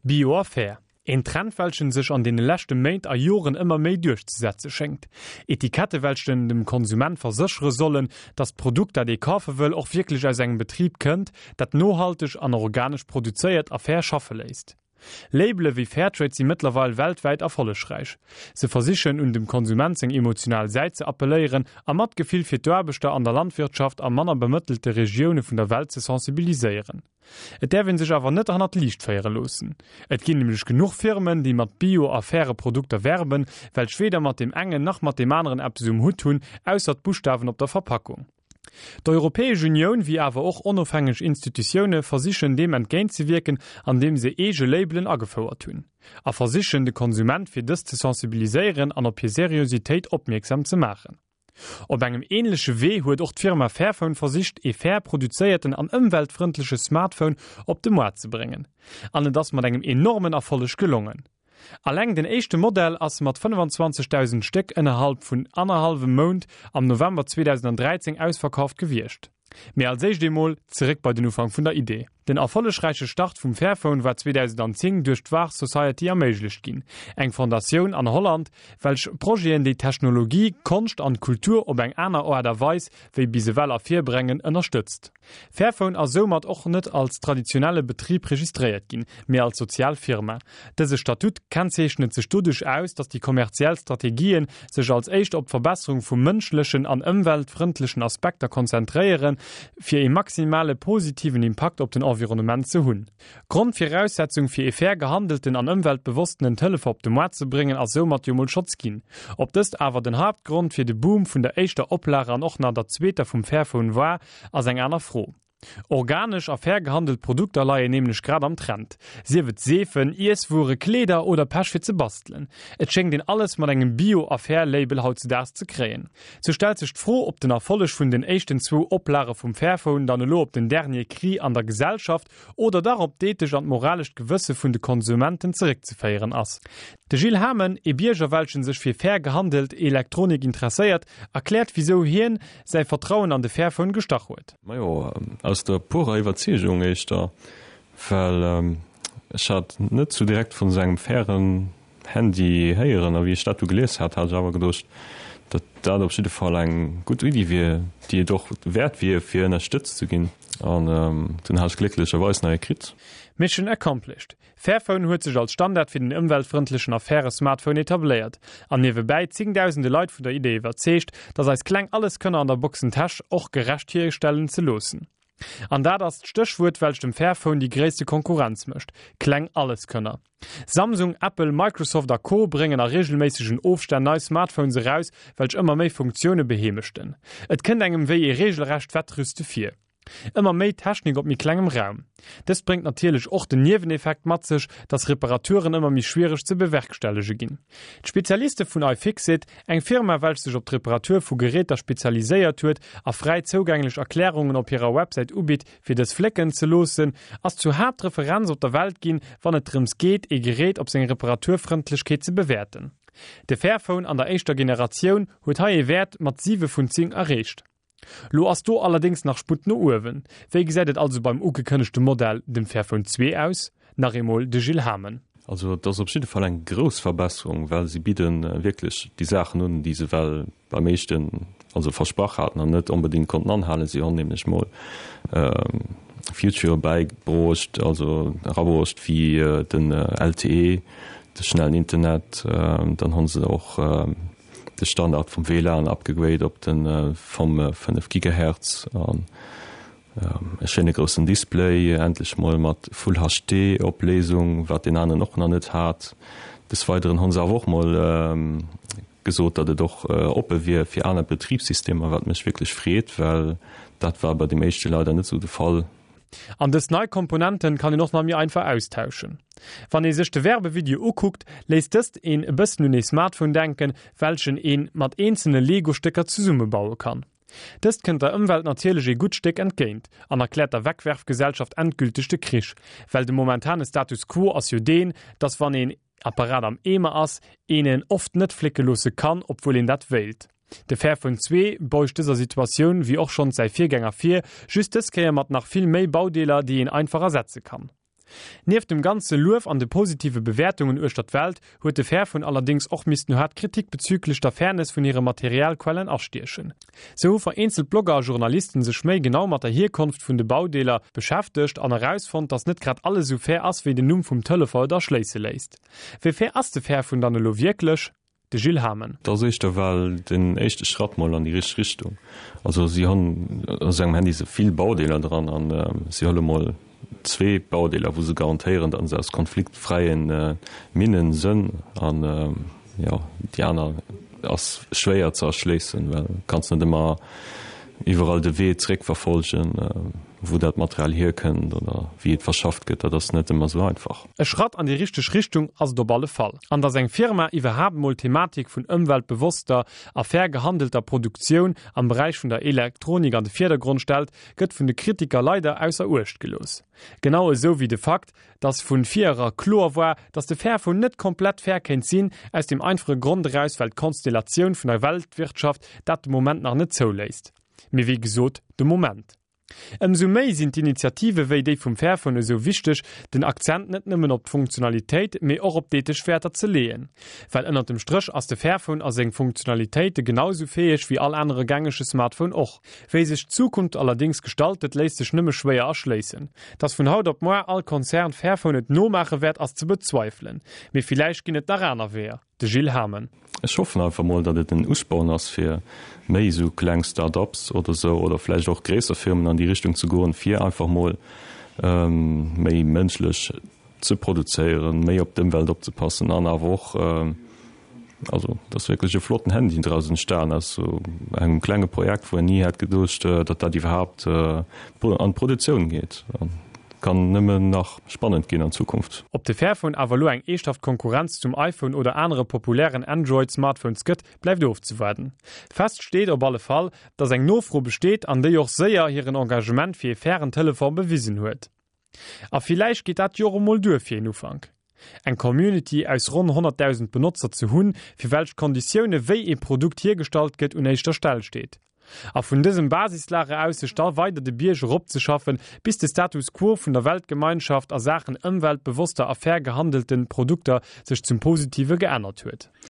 Bio a fair. Een Trend welchen sech an deene leschte Méint a Joren ëmmer méi duerchzesetze schéngt. Etikette welchen dem Konsument verséchere sollen, dass d'Produkt dat ee kafe wëll och wierklech aus engem Betrib kënnt, dat nohalteg an organesch produzéiert a fair schaffe léisst. Labele wéi Fairtrade si mëttlerweil weltwäit erfollegräich. Se versichen un dem Konsument seng emotional Säit ze appelléieren a Matgefill fir d'Aarbechter an der Landwirtschaft a manner bemëttelte Regioune vun der Welt ze sensibiliséieren. Et däerf een sech awer net hannert d'Liicht féiere loossen. Et ginn nämlech genuch Firmen, déi mat Bio a faire Produkter werben, welch weder mat deem engen nach mat deem aneren eppes um Hutt hunn, ausser d'Buschtawen op der Verpackung. D'Europäesch Unioun, wéi awer och onofhängeg Institutioune versichen deem entgéintzewierken, andeem se eege Labelen agefouert hunn. A versichen de Konsument fir dës ze sensibiliséieren an op hir Seriositéit opmierksam ze maachen. Op engem ähnleche Wee huet och d'Firma Fairphone versicht ee fair produzéierten an ëmweltfrëndleche Smartphone op de Moart ze bréngen. An et ass mat engem enormen Erfolleg gelongen. Alleng den éischte Modell ass mat 25.000 Stéck ënnerhalb vun annerhallwem Mount am November 2013 ausverkauft gewiescht. Mee als éischt eemol zeréck bei den Ufank vun der Idee. Den erfollegräiche Start vum Fairphone war 2010 duerch d'Wahr Society erméiglecht ginn, eng Fondatioun an Holland, welch Projeten déi Technologie, Konscht an Kultur op eng aner Aart a Weis wéi bis ewell ervirbrengen, ënnerstëtzt. Fairphone ass soumat och net als traditionelle Betrib registréiert ginn, mee als sozial Firma. Dëse Statut kennzeechnet sech doduerch aus, datt déi kommerziell Strategien sech als éischt op d'Verbesserung vu mënschlechen an ëmweltfrëndlechen Aspekter konzentréieren, fir ee maximale positiven Impakt op den Environnement ze hunn. Grondviraussetzung fir ee fair gehandelten an ëmweltbewossenen Telefon op de Moart ze bréngen ass soumat jo mol schotz ginn. Ob dëst awer den Haaptgrond fir de Boom vun der éischter Oplage an och nach der zweeter vum Fairphone war, ass eng aner Fro. Organesch a fair gehandelt Produkter leien nämlech grad am Trend. Sief et Seefen, Iesswuere, Kleeder oder Pech fir ze bastelen. Et schéngt een alles mat engem Bio a Fair Label hautzedaags ze kréien. Sou stellt sech d'Fro, ob den Erfolleg vun den éischten zwou Oplage vum Fairphone dann elo op den Dernier Cri an der Gesellschaft oder dach op d'ethesch an d'moralescht Gewësse vun de Konsumenten zeréckzeféieren ass. De Gilles Hamen, ee Bierger welchen sech fir fair gehandelt Elektronik interesséiert, erkläert wisou hien säi Vertrauen an de Fairphone gestach huet. Majo, aus der purer Iwwerzeegung éischter, well ech hat net sou direkt vun esou engem fairen Handy héieren a wéi ech dat du gelies hat, hat ech awer geduecht, datt dat op jidde Fall eng gutt Iddi wier, déi et och wäert wier, fir ënnerstëtzt ze ginn. An dunn hat ech glécklecherweis nach ee kritt. Mission accomplished! Fairphone huet sech als Standard fir den ëmweltfrëndlechen a faire Smartphone etabléiert an niewebäi zéngdausende Leit vun der Idee iwwerzeegt, datt eis kleng Alleskönner an der Boxentäsch och gerecht hierstellen ze loossen. An dat ass d'Stéchwuert, welch dem Fairphone déi gréisste Konkurrenz mécht, kleng Alleskönner. Samsung, Apple, Microsoft a Co. Bréngen a reegelméissegen Ofstänn nei Smartphones eraus, welch ëmmer méi Funktioune beheemeschten. Et kënnt engem wéi ee reegelrecht Wettrüste vir. Ëmmer méi Technik op méi klengem Raum. Dëst bréngt natierlech och den Nieweneffekt mat sech, dass Reparaturen ëmmer méi schwiereg ze bewerkstellege ginn. D'Spezialiste vun iFixit, eng Firma welch sech op d'Reparatur vu Geräter spezialiséiert huet a fräi zougänglech Erklärungen op hirer Websäit ubitt fir dës flécken ze loossen, ass zur Haaptreferenz op der Welt ginn, wann et drëms geet ee Gerät op seng Reparaturfrëndlechkeet ze bewäerten. De Fairphone an der éischter Generatioun huet hei ee Wäert mat 7 vun 10 erreecht. Lo ass do allerdéngs nach Sputt no uewen. Wéi gesäit et also beim ugekënnegte Modell, dem Fairphone 2 aus? Nach eemol de Gilles Hamen. Also et ass op jidde Fall eng grouss Verbesserung, well si bidde wierklech déi Saachen un, déi se well beim éischten also versprach haten an net onbedéngt konnten anhalen. Si honn nämlech mol Featurë bäibruecht, also erabruecht wéi den LTE, de schnellen Internet. Dann honn se och de Standard vum WLAN upgegrade op de vom 5 Gigahertz an e schéine groussen Display, endlech mol mat Full HD Opléisung, wat deen aneren och nach net hat. Des Weideren hunn se awer och mol gesot, datt et och oppe wier fir aner Betribssystemer, wat mech wierklech freet, well dat war bei deem éischte leider net esou de Fall. An dës nei Komponenten kann een och nach méi einfach austauschen. Wann ee sech de Werbevideo ukuckt, léisst dëst een e bëssen un ee Smartphone denken, welchen een mat eenzelne Lego-Stécker zesummebaue kann. Dëst kënnt der Ëmwelt natierlech ee gutt Stéck entgéint an erkläert der Wegwerfgesellschaft endgülteg de Krich, well de momentane Status quo ass jo deen, dass wann een Apparat am Eemer ass, een en oft net flécke loosse kann, obwuel een dat wéilt. De Fairphone 2 beugt dëser Situatioun, wéi och schonns säi Virgänger vir, just dës Kéier mat nach vill méi Baudeeler, déi een einfach ersetze kann. Nieft dem ganze Luef an de positive Bewäertungen uechter d'Welt huet de Fairphone allerdéngs och missten haart Kritik bezüglech der Fairness vun hire Materialquellen astiechen. Sou hu vereenzelt Blogger a Journalisten sech méi genau mat der Hierkonft vun de Baudeeler beschäftegt an erausfonnt, dass net grad alles esou fair ass, wéi den Numm vum Telefon et erschléisse léisst. Wéi fair ass de Fairphone dann elo wierklech? De Gilles Hamen. Dat ass éischter well den éischte Schratt mol an déi richteg Richtung. Also si hunn a sou engem Handy sou vill Baudeeler dran an si huele mol zwee Baudeeler, wou se garantéieren, datt se aus konfliktfräie Minnen sënn an jo déi aner ass schwéier ze erschléissen, well kanns net ëmmer iwwerall de Wee zréckverfolgen, wou dat Material hierkënnt oder wéi et verschafft gëtt. Dat ass net ëmmer sou einfach. E Schratt an déi richteg Richtung ass et op alle Fall. An datt eng Firma iwwerhaapt mol d'Thematik vun ëmweltbewosster a fair gehandelter Produktioun am Beräich vun der Elektronik an de Virdergrond stellt, gëtt vun de Kritiker leider ausser Uecht gelooss. Genau esou wéi de Fakt, datt vun vir era kloer war, datt de Fairphone net komplett fair kéint sinn, aus dem einfache Grond eraus, well d'Konstellatioun vun der Weltwirtschaft dat de Moment nach net zouléisst. Mee wéi gesot, de Moment. Ëmsou méi sinn d'Initiative wéi déi vum Fairphone esou wichteg, den Akzent net nëmmen op d'Funktionalitéit, mee och op d'ethesch Wäerter ze leeën. Well ënnert dem Stréch ass de Fairphone a seng Funktionalitéite genau esou fäeg wéi all anere gängege Smartphone och. Wéi sech d'Zukunft allerdéngs gestaltet, léisst sech nëmme schwéier erschléissen. Dass vun haut op moar all Konzern Fairphone et nomaache wäert, ass ze bezweifelen. Mee villäicht ginn et nach aner Weeër. De Gilles Hamen. Ech hoffen einfach mol, datt et en Usporn ass fir méi esou kleng Start-ups oder esou oder vläicht och gréisser Firmen an déi Richtung ze goen, fir einfach mol méi mënschlech ze produzéieren, méi op d'Ëmwelt opzepassen an awer och, also et ass wierklech e flotten Handy draus entstan aus esou engem klenge Projekt, wou een ni hätt geduecht, datt dat iwwerhaapt an d'Produktioun geet. Kann nëmmen nach spannend ginn an Zukunft. Ob de Fairphone awer elo eng eeschthaft Konkurrenz zum iPhone oder anere populären Android-Smartphones gëtt, bleift ofzewaarden. Fest steet op alle Fall, dass eng Nofro besteet an déi och séier hiren Engagement fir ee fairen Telefon bewisen huet. A villäicht geet dat jo och emol duer fir een Ufank. Eng Community aus ronn 100.000 Benotzer ze hunn, fir welch d'Konditioune wéi ee Produkt hiergestallt gëtt un éischter Stell steet. A vun dësem Basislager aus sech da weider de Bierg eropzeschaffen, bis de Status quo vun der Weltgemeinschaft a Saachen ëmweltbewosster a fair gehandelten Produkter sech zum Positive geännert huet.